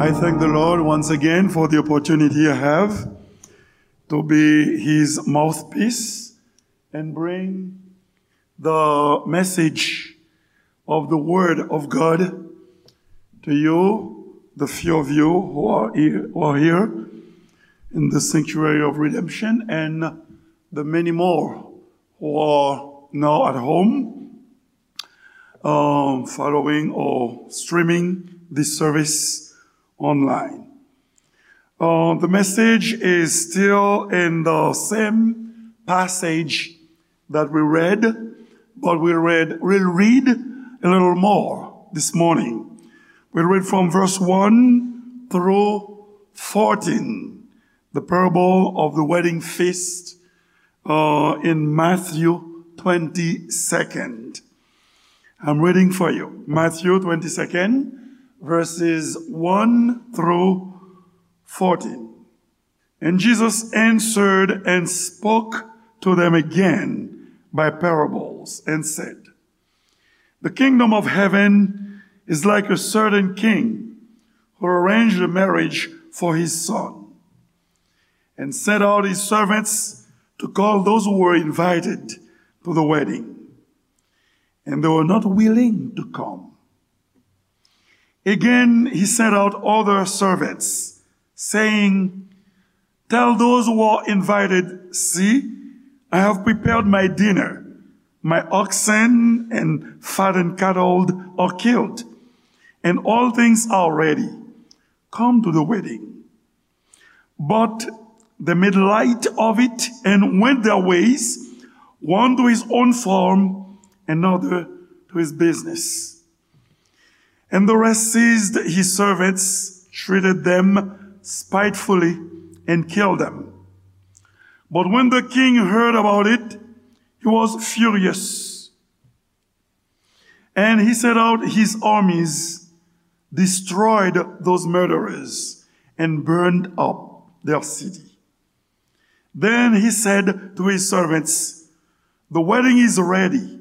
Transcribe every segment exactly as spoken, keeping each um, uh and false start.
I thank the Lord once again for the opportunity I have to be his mouthpiece and bring the message of the Word of God to you, the few of you who are here, who are here in the sanctuary of redemption, and the many more who are now at home, um, following or streaming this service online. Uh, the message is still in the same passage that we read, but we read, we'll read a little more this morning. We read from verse one through fourteen, the parable of the wedding feast, uh, in Matthew twenty-second. I'm reading for you. Matthew twenty-second, verses one through fourteen. And Jesus answered and spoke to them again by parables and said, "The kingdom of heaven is like a certain king who arranged a marriage for his son and sent out his servants to call those who were invited to the wedding. And they were not willing to come. Again, he sent out other servants, saying, 'Tell those who are invited, see, I have prepared my dinner. My oxen and fattened cattle are killed, and all things are ready. Come to the wedding.' But they made light of it and went their ways, one to his own farm, another to his business. And the rest seized his servants, treated them spitefully, and killed them. But when the king heard about it, he was furious. And he sent out his armies, destroyed those murderers, and burned up their city. Then he said to his servants, 'The wedding is ready,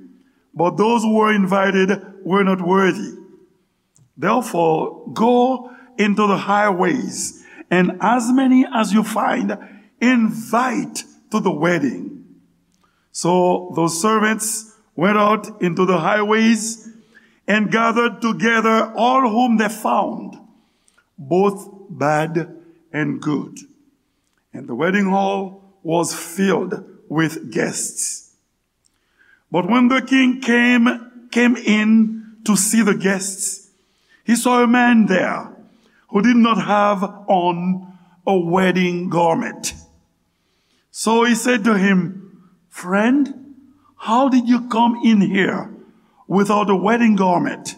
but those who were invited were not worthy. Therefore, go into the highways, and as many as you find, invite to the wedding.' So those servants went out into the highways and gathered together all whom they found, both bad and good. And the wedding hall was filled with guests. But when the king came, came in to see the guests, he saw a man there who did not have on a wedding garment. So he said to him, 'Friend, how did you come in here without a wedding garment?'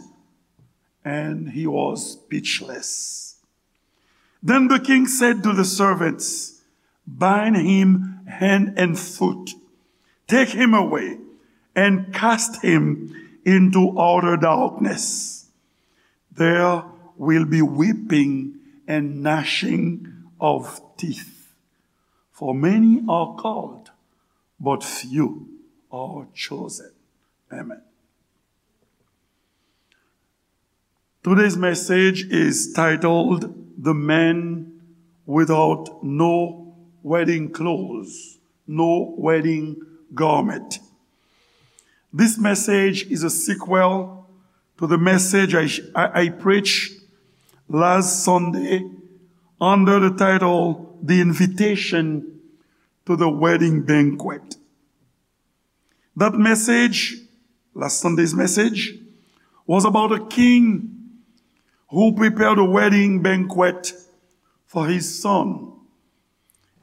And he was speechless. Then the king said to the servants, 'Bind him hand and foot, take him away, and cast him into outer darkness. There will be weeping and gnashing of teeth, for many are called, but few are chosen.'" Amen. Today's message is titled, "The Man Without No Wedding Clothes, No Wedding Garment." This message is a sequel to the message I, I, I preached last Sunday under the title, "The Invitation to the Wedding Banquet." That message, last Sunday's message, was about a king who prepared a wedding banquet for his son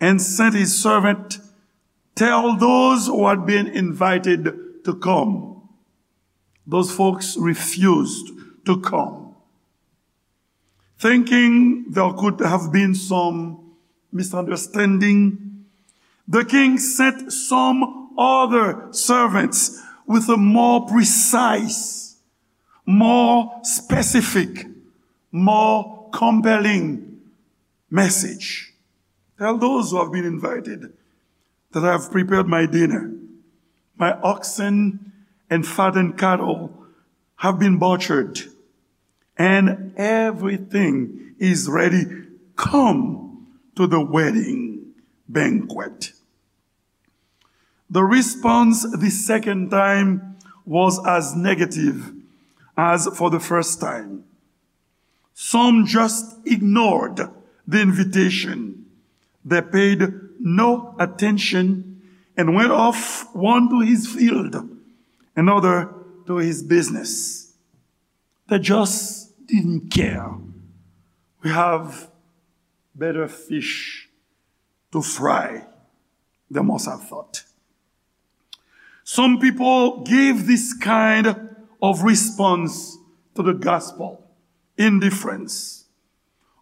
and sent his servant tell those who had been invited to come. Those folks refused to come. Thinking there could have been some misunderstanding, the king sent some other servants with a more precise, more specific, more compelling message. "Tell those who have been invited that I have prepared my dinner. My oxen and fattened cattle have been butchered, and everything is ready. Come to the wedding banquet." The response the second time was as negative as for the first time. Some just ignored the invitation. They paid no attention and went off, one to his field, another to his business. They just didn't care. We have better fish to fry, they must have thought. Some people give this kind of response to the gospel: indifference.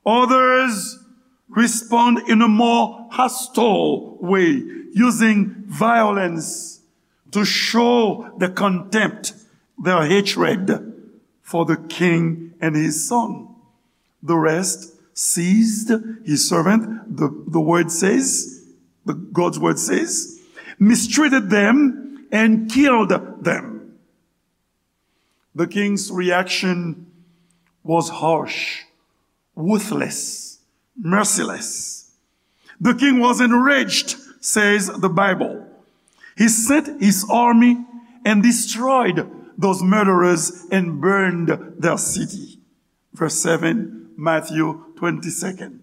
Others respond in a more hostile way, using violence to show their contempt, their hatred for the king and his son. The rest seized his servant, the, the word says, the, God's word says, mistreated them, and killed them. The king's reaction was harsh, ruthless, merciless. The king was enraged, says the Bible. He sent his army and destroyed those murderers and burned their city. Verse seven, Matthew twenty-second.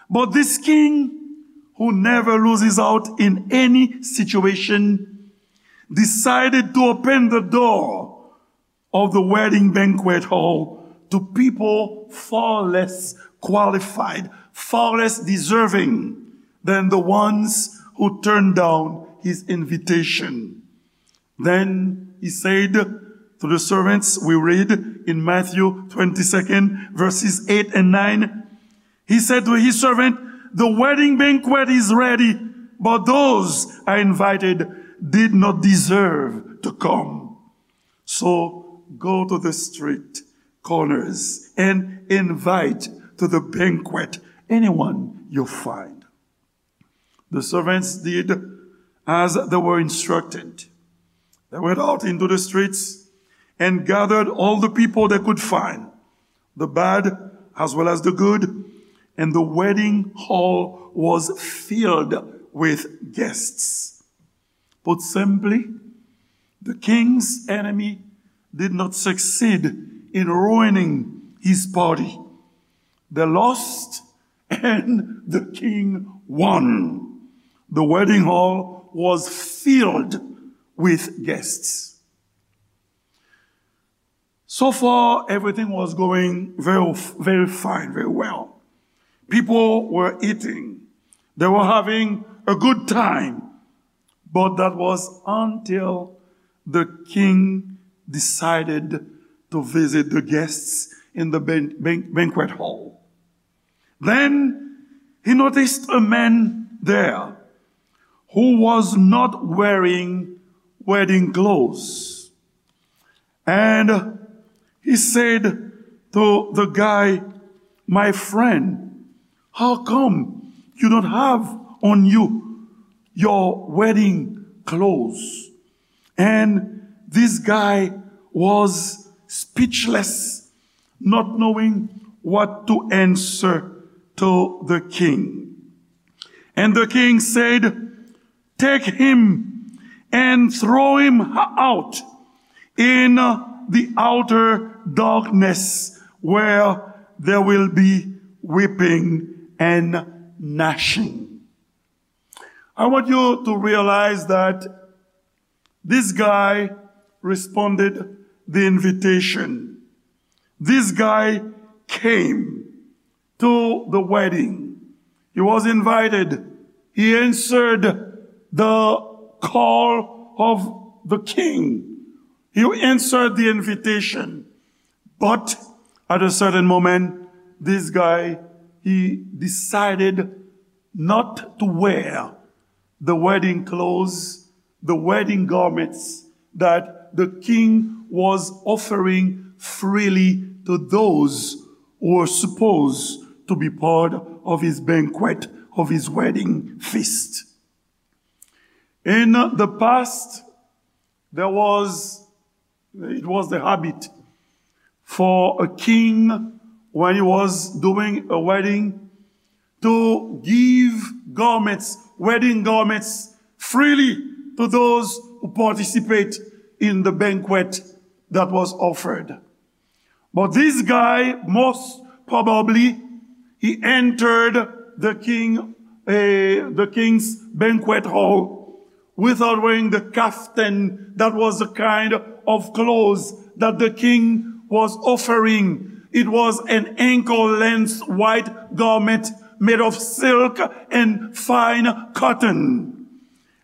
But this king, who never loses out in any situation, decided to open the door of the wedding banquet hall to people far less qualified, far less deserving than the ones who turned down his invitation. Then he said to the servants, we read in Matthew twenty-second, verses eight and nine, he said to his servant, the wedding banquet is ready, but those I invited did not deserve to come. So go to the street corners and invite to the banquet anyone you find. The servants did as they were instructed. They went out into the streets and gathered all the people they could find, the bad as well as the good, and the wedding hall was filled with guests. Put simply, the king's enemy did not succeed in ruining his party. They lost and the king won. The wedding hall was filled with guests. So far, everything was going very, very fine, very well. People were eating. They were having a good time. But that was until the king decided to visit the guests in the ban-, ban-, banquet hall. Then he noticed a man there who was not wearing wedding clothes. And he said to the guy, my friend, how come you don't have on you your wedding clothes? And this guy was speechless, not knowing what to answer to the king. And the king said, take him and throw him out in the outer darkness where there will be weeping and gnashing. I want you to realize that this guy responded the invitation. This guy came to the wedding. He was invited. He answered the call of the king. He answered the invitation. But at a certain moment, this guy, he decided not to wear the wedding clothes, the wedding garments that the king was offering freely to those who were supposed to be part of his banquet, of his wedding feast. In the past, there was, it was the habit for a king when he was doing a wedding to give garments, wedding garments, freely to those who participate in the banquet that was offered. But this guy, most probably, he entered the king, eh, the king's banquet hall without wearing the kaftan. That was the kind of clothes that the king was offering. It was an ankle-length white garment made of silk and fine cotton.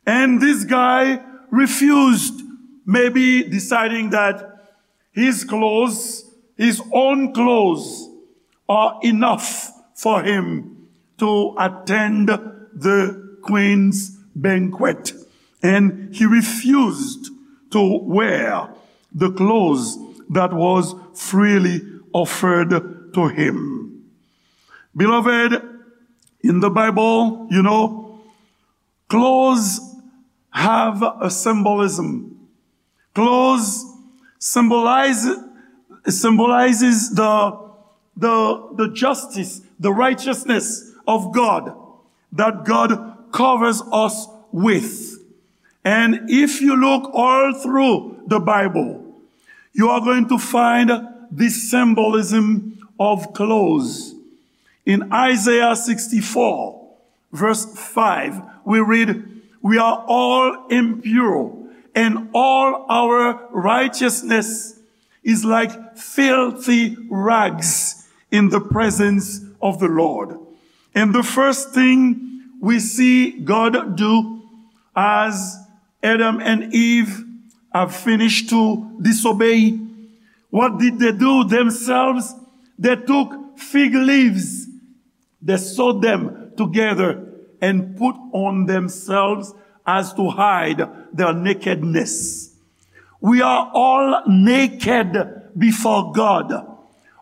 And this guy refused, maybe deciding that his clothes, his own clothes, are enough for him to attend the queen's banquet. And he refused to wear the clothes that was freely offered to him. Beloved, in the Bible, you know, clothes have a symbolism. Clothes symbolize, symbolizes the, the, the justice, the righteousness of God that God covers us with. And if you look all through the Bible, you are going to find this symbolism of clothes. In Isaiah sixty-four, verse five, we read, "We are all impure, and all our righteousness is like filthy rags in the presence of the Lord." And the first thing we see God do as Adam and Eve have finished to disobey, what did they do themselves? They took fig leaves, they sewed them together and put on themselves as to hide their nakedness. We are all naked before God.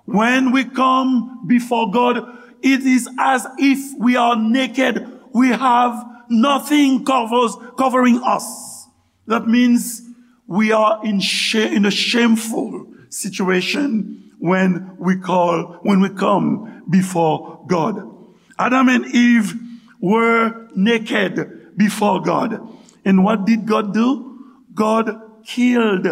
When we come before God, it is as if we are naked. We have nothing covers, covering us. That means we are in, sha- in a shameful situation when we call, when we come before God. Adam and Eve were naked before God. And what did God do? God killed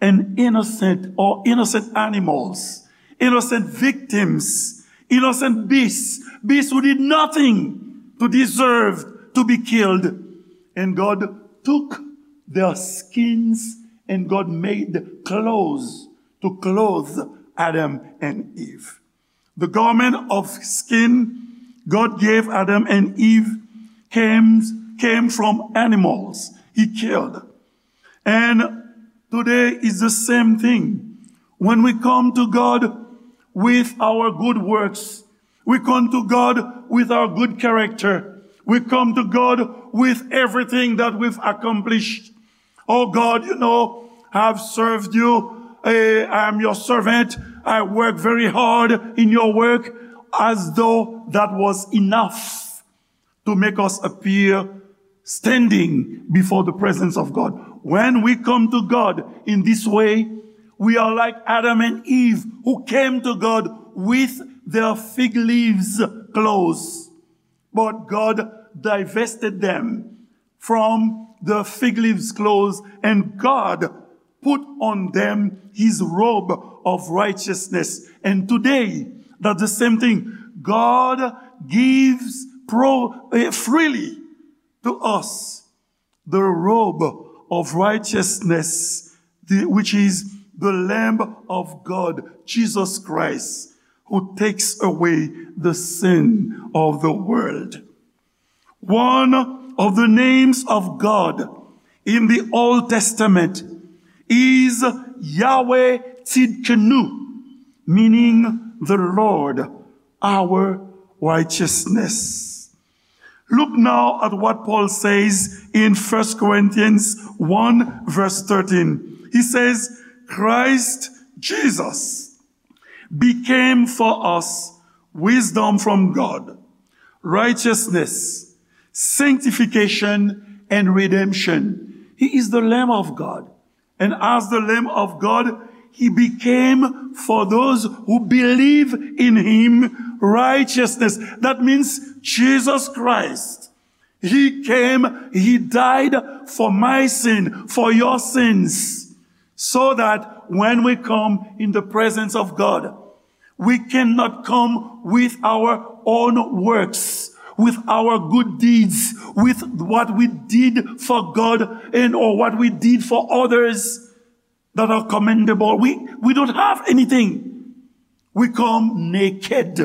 an innocent or innocent animals, innocent victims, innocent beasts, beasts who did nothing to deserve to be killed. And God took their skins and God made clothes to clothe Adam and Eve. The garment of skin God gave Adam and Eve came, came from animals he killed. And today is the same thing. When we come to God with our good works, we come to God with our good character, we come to God with everything that we've accomplished. "Oh God, you know, I've served you. Eh, I am your servant. I work very hard in your work," as though that was enough to make us appear standing before the presence of God. When we come to God in this way, we are like Adam and Eve who came to God with their fig leaves clothes. But God divested them from the fig leaves clothes, and God put on them his robe of righteousness. And today, that's the same thing. God gives pro, eh, freely to us the robe of righteousness, the, which is the Lamb of God, Jesus Christ, who takes away the sin of the world. One of the names of God in the Old Testament is Yahweh Tsidkenu, meaning the Lord, our righteousness. Look now at what Paul says in First Corinthians one, verse thirteen. He says, "Christ Jesus became for us wisdom from God, righteousness, sanctification, and redemption." He is the Lamb of God. And as the Lamb of God, He became, for those who believe in him, righteousness. That means Jesus Christ. He came, he died for my sin, for your sins, so that when we come in the presence of God, we cannot come with our own works, with our good deeds, with what we did for God and or what we did for others that are commendable. We, we don't have anything. We come naked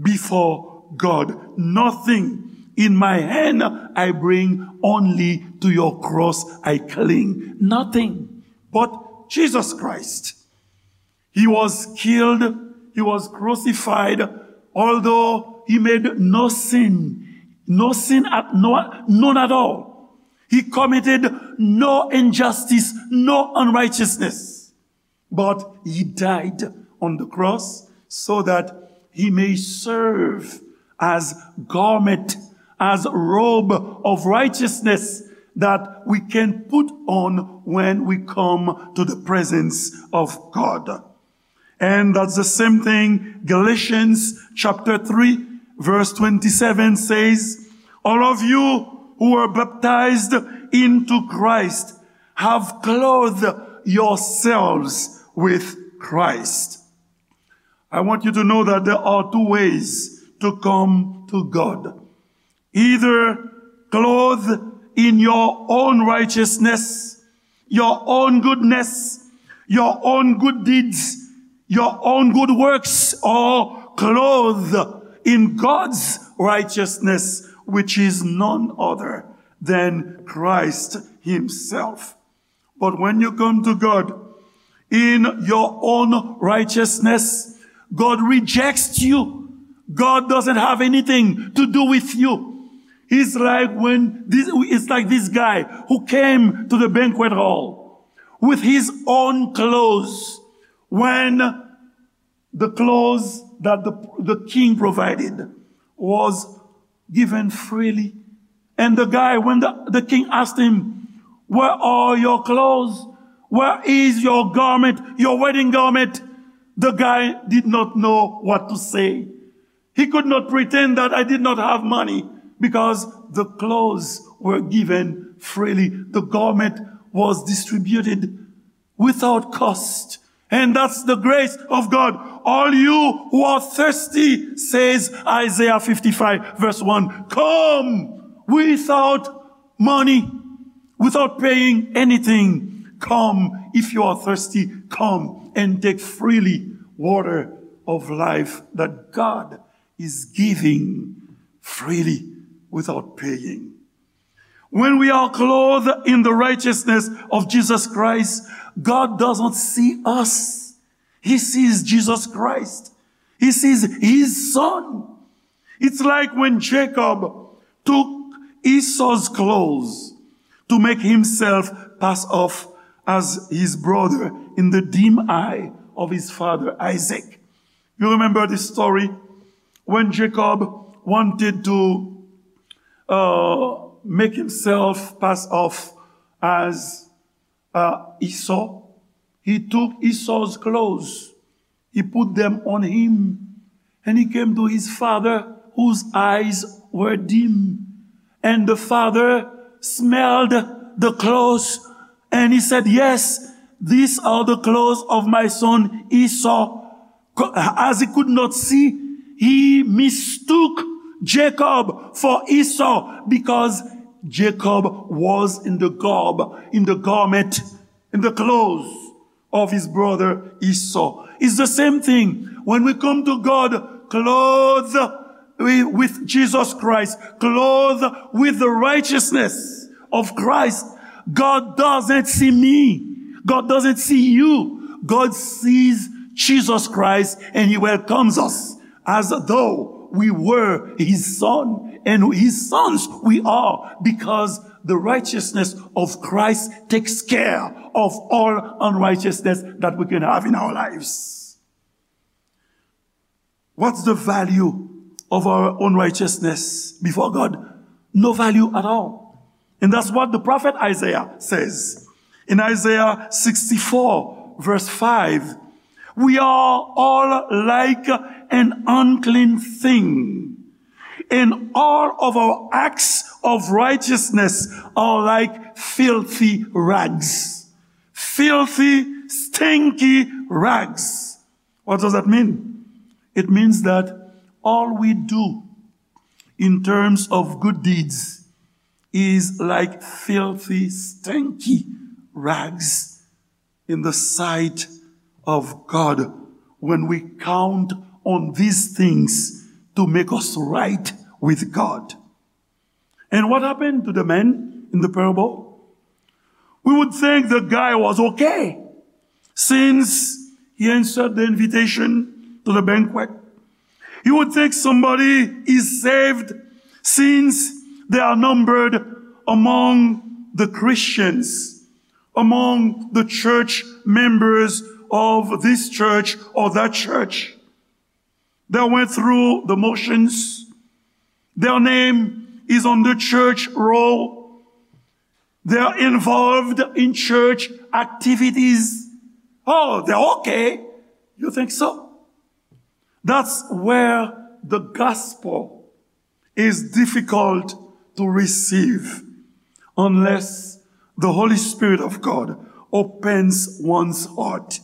before God. Nothing in my hand I bring, only to your cross I cling. Nothing but Jesus Christ. He was killed, he was crucified, although he made no sin, no sin at no, none at all. He committed no injustice, no unrighteousness. But he died on the cross so that he may serve as garment, as robe of righteousness that we can put on when we come to the presence of God. And that's the same thing Galatians chapter three, verse twenty-seven says, "All of you who were baptized into Christ have clothed yourselves with Christ." I want you to know that there are two ways to come to God. Either clothed in your own righteousness, your own goodness, your own good deeds, your own good works, or clothed in God's righteousness, which is none other than Christ himself. But when you come to God in your own righteousness, God rejects you. God doesn't have anything to do with you. It's like when this, it's like this guy who came to the banquet hall with his own clothes. When the clothes that the, the king provided was given freely. And the guy, when the, the king asked him, "Where are your clothes? Where is your garment, your wedding garment?" The guy did not know what to say. He could not pretend that I did not have money because the clothes were given freely. The garment was distributed without cost. And that's the grace of God. "All you who are thirsty," says Isaiah fifty-five, verse one, "come without money, without paying anything. Come, if you are thirsty, come and take freely water of life that God is giving freely without paying." When we are clothed in the righteousness of Jesus Christ, God doesn't see us. He sees Jesus Christ. He sees his son. It's like when Jacob took Esau's clothes to make himself pass off as his brother in the dim eye of his father Isaac. You remember this story? When Jacob wanted to, uh, make himself pass off as, uh, Esau, he took Esau's clothes, he put them on him, and he came to his father whose eyes were dim. And the father smelled the clothes and he said, "Yes, these are the clothes of my son Esau." Co-, as he could not see, he mistook Jacob for Esau because Jacob was in the garb, in the garment, in the clothes of his brother Esau. It's the same thing. When we come to God clothed with Jesus Christ, clothed with the righteousness of Christ, God doesn't see me. God doesn't see you. God sees Jesus Christ and he welcomes us as though we were his son, and his sons we are, because the righteousness of Christ takes care of all unrighteousness that we can have in our lives. What's the value of our own righteousness before God? No value at all. And that's what the prophet Isaiah says. In Isaiah sixty-four, Verse five, "We are all like an unclean thing, and all of our acts of righteousness are like filthy rags." Filthy, stinky rags. What does that mean? It means that all we do in terms of good deeds is like filthy, stinky rags in the sight of God when we count on these things to make us right with God. And what happened to the man in the parable? We would think the guy was okay since he answered the invitation to the banquet. You would think somebody is saved since they are numbered among the Christians, among the church members of this church or that church. They went through the motions. Their name is on the church roll. They're involved in church activities. Oh, they're okay. You think so? That's where the gospel is difficult to receive unless the Holy Spirit of God opens one's heart.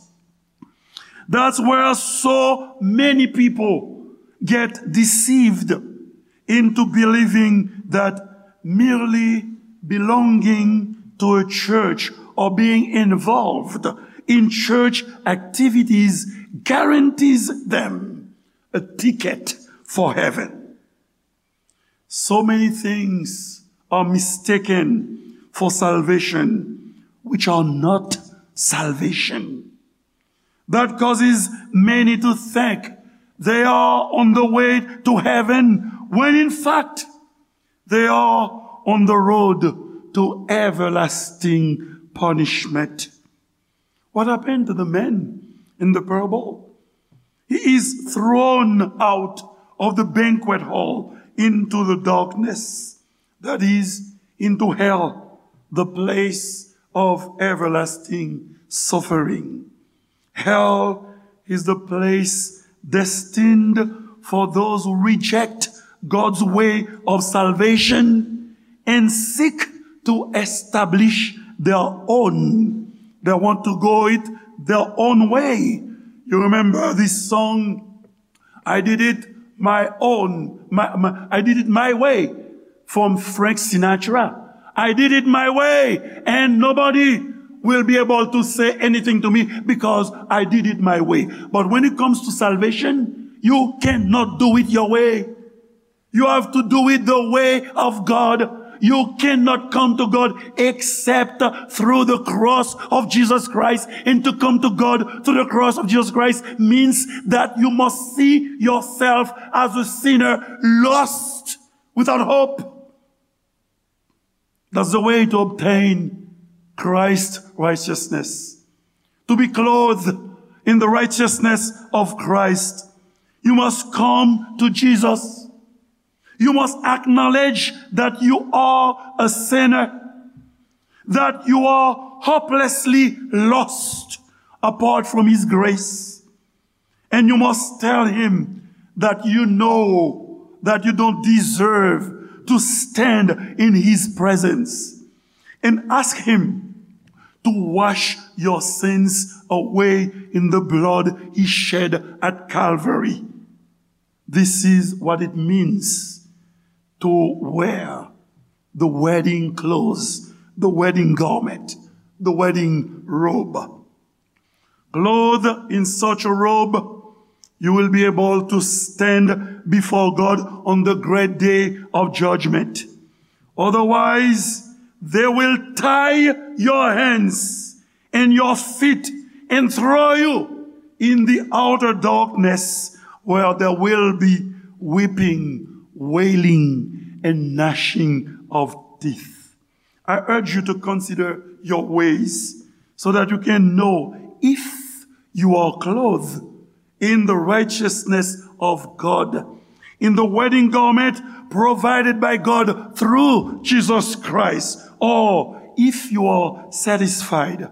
That's where so many people get deceived into believing that merely belonging to a church or being involved in church activities guarantees them a ticket for heaven. So many things are mistaken for salvation, which are not salvation. That causes many to think they are on the way to heaven, when in fact they are on the road to everlasting punishment. What happened to the man in the parable? He is thrown out of the banquet hall into the darkness, that is, into hell, the place of everlasting suffering. Hell is the place destined for those who reject God's way of salvation and seek to establish their own. They want to go it their own way. You remember this song, "I did it my own, my, my, I did it my way," from Frank Sinatra. "I did it my way, and nobody will be able to say anything to me because I did it my way." But when it comes to salvation, you cannot do it your way. You have to do it the way of God. You cannot come to God except through the cross of Jesus Christ. And to come to God through the cross of Jesus Christ means that you must see yourself as a sinner, lost, without hope. That's the way to obtain Christ's righteousness. To be clothed in the righteousness of Christ, you must come to Jesus. You must acknowledge that you are a sinner, that you are hopelessly lost apart from His grace. And you must tell Him that you know that you don't deserve to stand in His presence. And ask Him to wash your sins away in the blood He shed at Calvary. This is what it means to wear the wedding clothes, the wedding garment, the wedding robe. Clothed in such a robe, you will be able to stand before God on the great day of judgment. Otherwise, they will tie your hands and your feet and throw you in the outer darkness, where there will be weeping, wailing, and gnashing of teeth. I urge you to consider your ways so that you can know if you are clothed in the righteousness of God, in the wedding garment provided by God through Jesus Christ, or if you are satisfied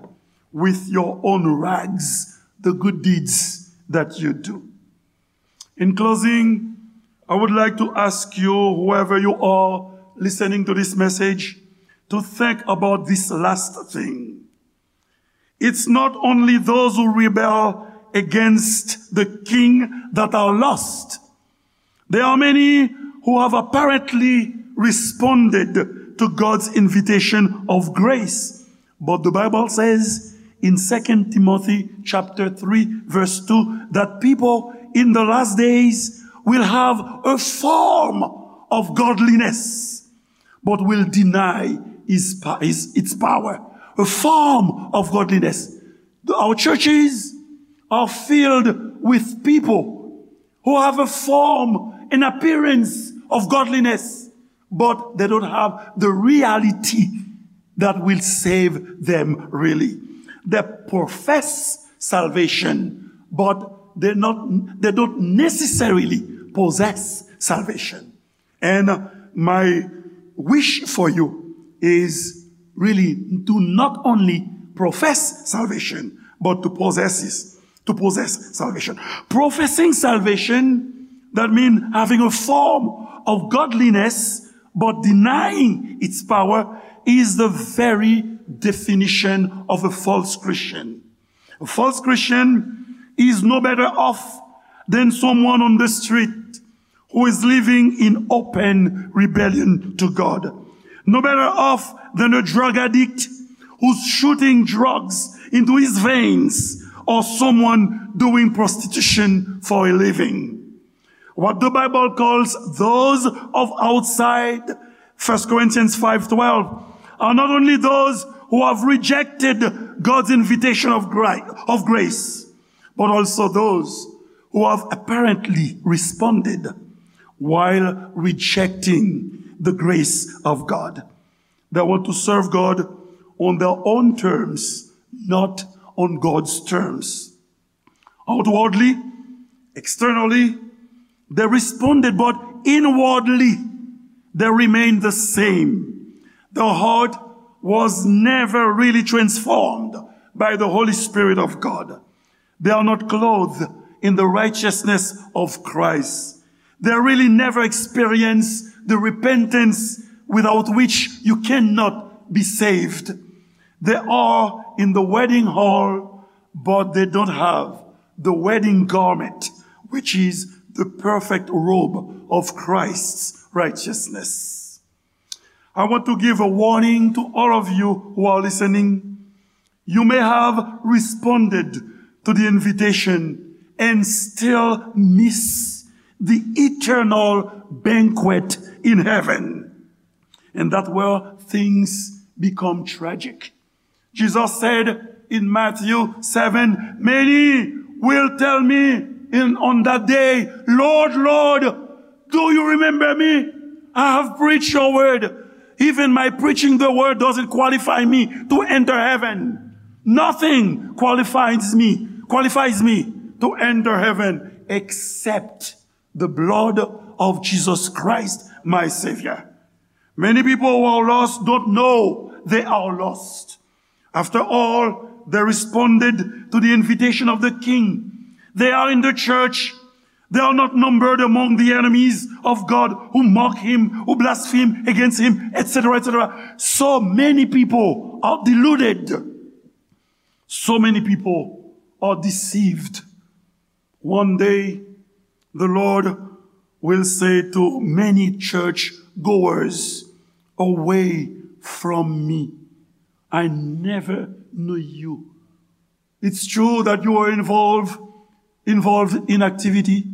with your own rags the good deeds that you do. In closing, I would like to ask you, whoever you are listening to this message, to think about this last thing. It's not only those who rebel against the king that are lost. There are many who have apparently responded to God's invitation of grace. But the Bible says in Second Timothy chapter three, verse two, that people in the last days will have a form of godliness, but will deny his, pa- his, its power. A form of godliness. Our churches are filled with people who have a form, an appearance of godliness, but they don't have the reality that will save them really. They profess salvation, but they not, they don't necessarily possess salvation. And my wish for you is really to not only profess salvation, but to possess it, to possess salvation. Professing salvation, that means having a form of godliness, but denying its power, is the very definition of a false Christian. A false Christian is no better off than someone on the street who is living in open rebellion to God. No better off than a drug addict who's shooting drugs into his veins, or someone doing prostitution for a living. What the Bible calls those of outside, First Corinthians five twelve, are not only those who have rejected God's invitation of, gri- of grace, but also those who have apparently responded while rejecting the grace of God. They want to serve God on their own terms, not on God's terms. Outwardly, externally, they responded, but inwardly, they remained the same. Their heart was never really transformed by the Holy Spirit of God. They are not clothed in the righteousness of Christ. They really never experience the repentance without which you cannot be saved. They are in the wedding hall, but they don't have the wedding garment, which is the perfect robe of Christ's righteousness. I want to give a warning to all of you who are listening. You may have responded to the invitation and still miss the eternal banquet in heaven. And that's where things become tragic. Jesus said in Matthew seven, many will tell me in, on that day, Lord, Lord, do you remember me? I have preached your word. Even my preaching the word doesn't qualify me to enter heaven. Nothing qualifies me, qualifies me to enter heaven except the blood of Jesus Christ, my Savior. Many people who are lost don't know they are lost. After all, they responded to the invitation of the king. They are in the church. They are not numbered among the enemies of God who mock him, who blaspheme against him, et cetera, et cetera. So many people are deluded. So many people are deceived. One day, the Lord will say to many church goers, away from me, I never knew you. It's true that you were involved, involved in activity,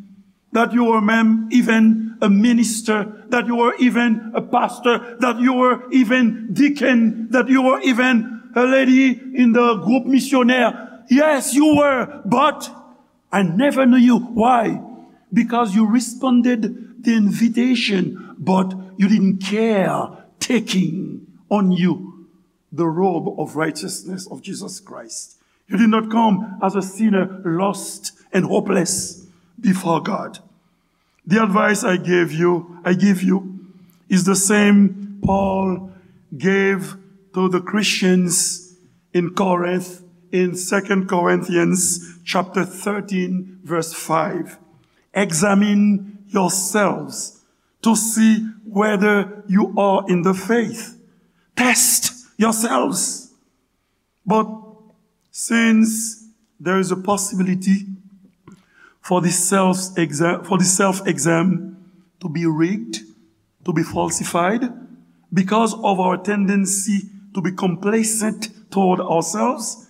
that you were mem- even a minister, that you were even a pastor, that you were even deacon, that you were even a lady in the groupe missionnaire. Yes, you were, but I never knew you. Why? Because you responded the invitation, but you didn't care taking on you the robe of righteousness of Jesus Christ. You did not come as a sinner lost and hopeless before God. The advice I gave you, I give you, is the same Paul gave to the Christians in Corinth in Second Corinthians chapter thirteen, verse five. Examine yourselves to see whether you are in the faith. Test yourselves. But since there is a possibility for the self-exam, for the self-exam to be rigged, to be falsified, because of our tendency to be complacent toward ourselves,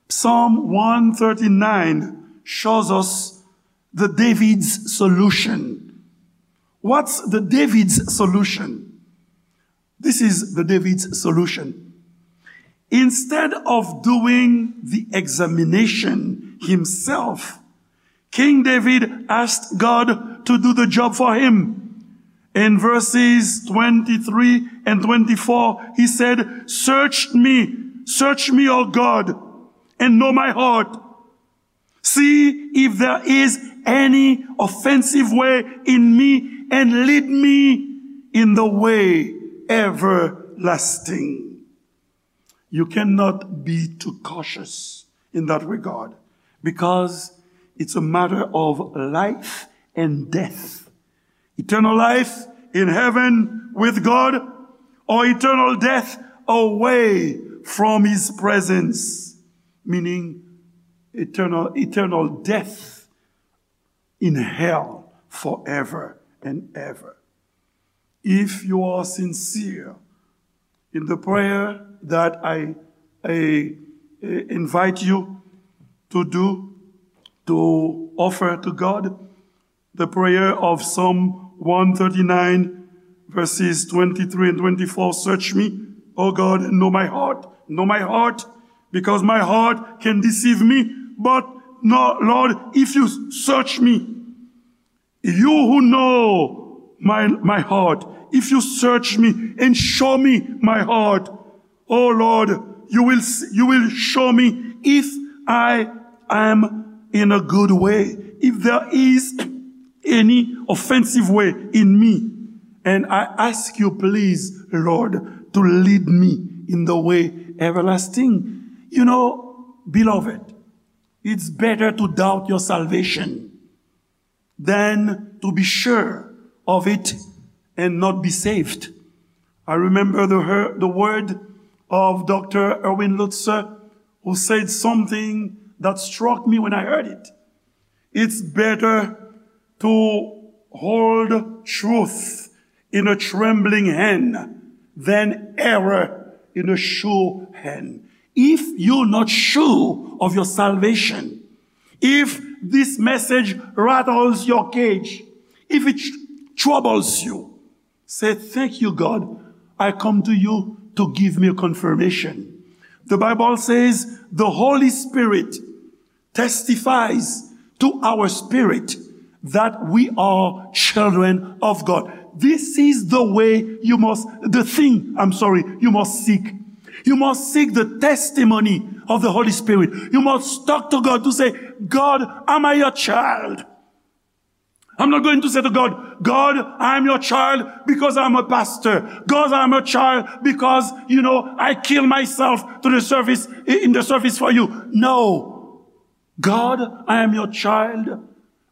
Psalm one thirty-nine shows us the David's solution. What's the David's solution? This is the David's solution. Instead of doing the examination himself, King David asked God to do the job for him. In verses twenty-three and twenty-four, he said, "Search me, search me, O God, and know my heart. See if there is any offensive way in me, and lead me in the way everlasting." You cannot be too cautious in that regard, because it's a matter of life and death. Eternal life in heaven with God, or eternal death away from his presence, meaning eternal, eternal death in hell forever and ever. If you are sincere in the prayer that I, I, I invite you to do, to offer to God, the prayer of Psalm one thirty-nine, verses twenty-three and twenty-four. "Search me, O God, and know my heart. Know my heart, because my heart can deceive me. But no, Lord, if you search me, you who know my, my heart, if you search me and show me my heart, oh Lord, you will s-, you will show me if I am in a good way, if there is any offensive way in me. And I ask you, please, Lord, to lead me in the way everlasting." You know, beloved, it's better to doubt your salvation than to be sure of it and not be saved. I remember the, her, the word of Doctor Erwin Lutzer, who said something that struck me when I heard it. It's better to hold truth in a trembling hand than error in a sure hand. If you're not sure of your salvation, if this message rattles your cage, if it tr-, troubles you, say, "Thank you, God. I come to you to give me a confirmation." The Bible says the Holy Spirit testifies to our spirit that we are children of God. This is the way you must, the thing, I'm sorry, you must seek. You must seek the testimony of the Holy Spirit. You must talk to God to say, "God, am I your child?" I'm not going to say to God, "God, I am your child because I'm a pastor. God, I am your child because, you know, I kill myself to the service, in the service for you." No. "God, I am your child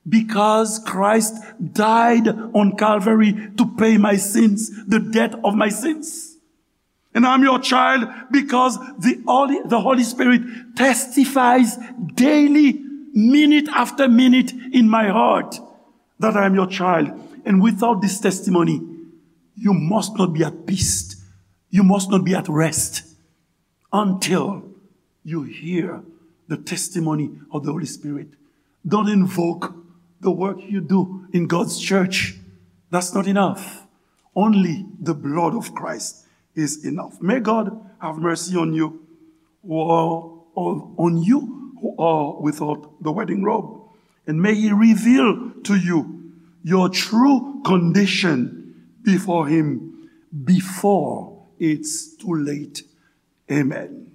because Christ died on Calvary to pay my sins, the debt of my sins. And I'm your child because the Holy, the Holy Spirit testifies daily, minute after minute in my heart that I am your child." And without this testimony, you must not be at peace. You must not be at rest until you hear the testimony of the Holy Spirit. Don't invoke the work you do in God's church. That's not enough. Only the blood of Christ is enough. May God have mercy on you, who are, on you who are without the wedding robe. And may he reveal to you your true condition before him, before it's too late. Amen.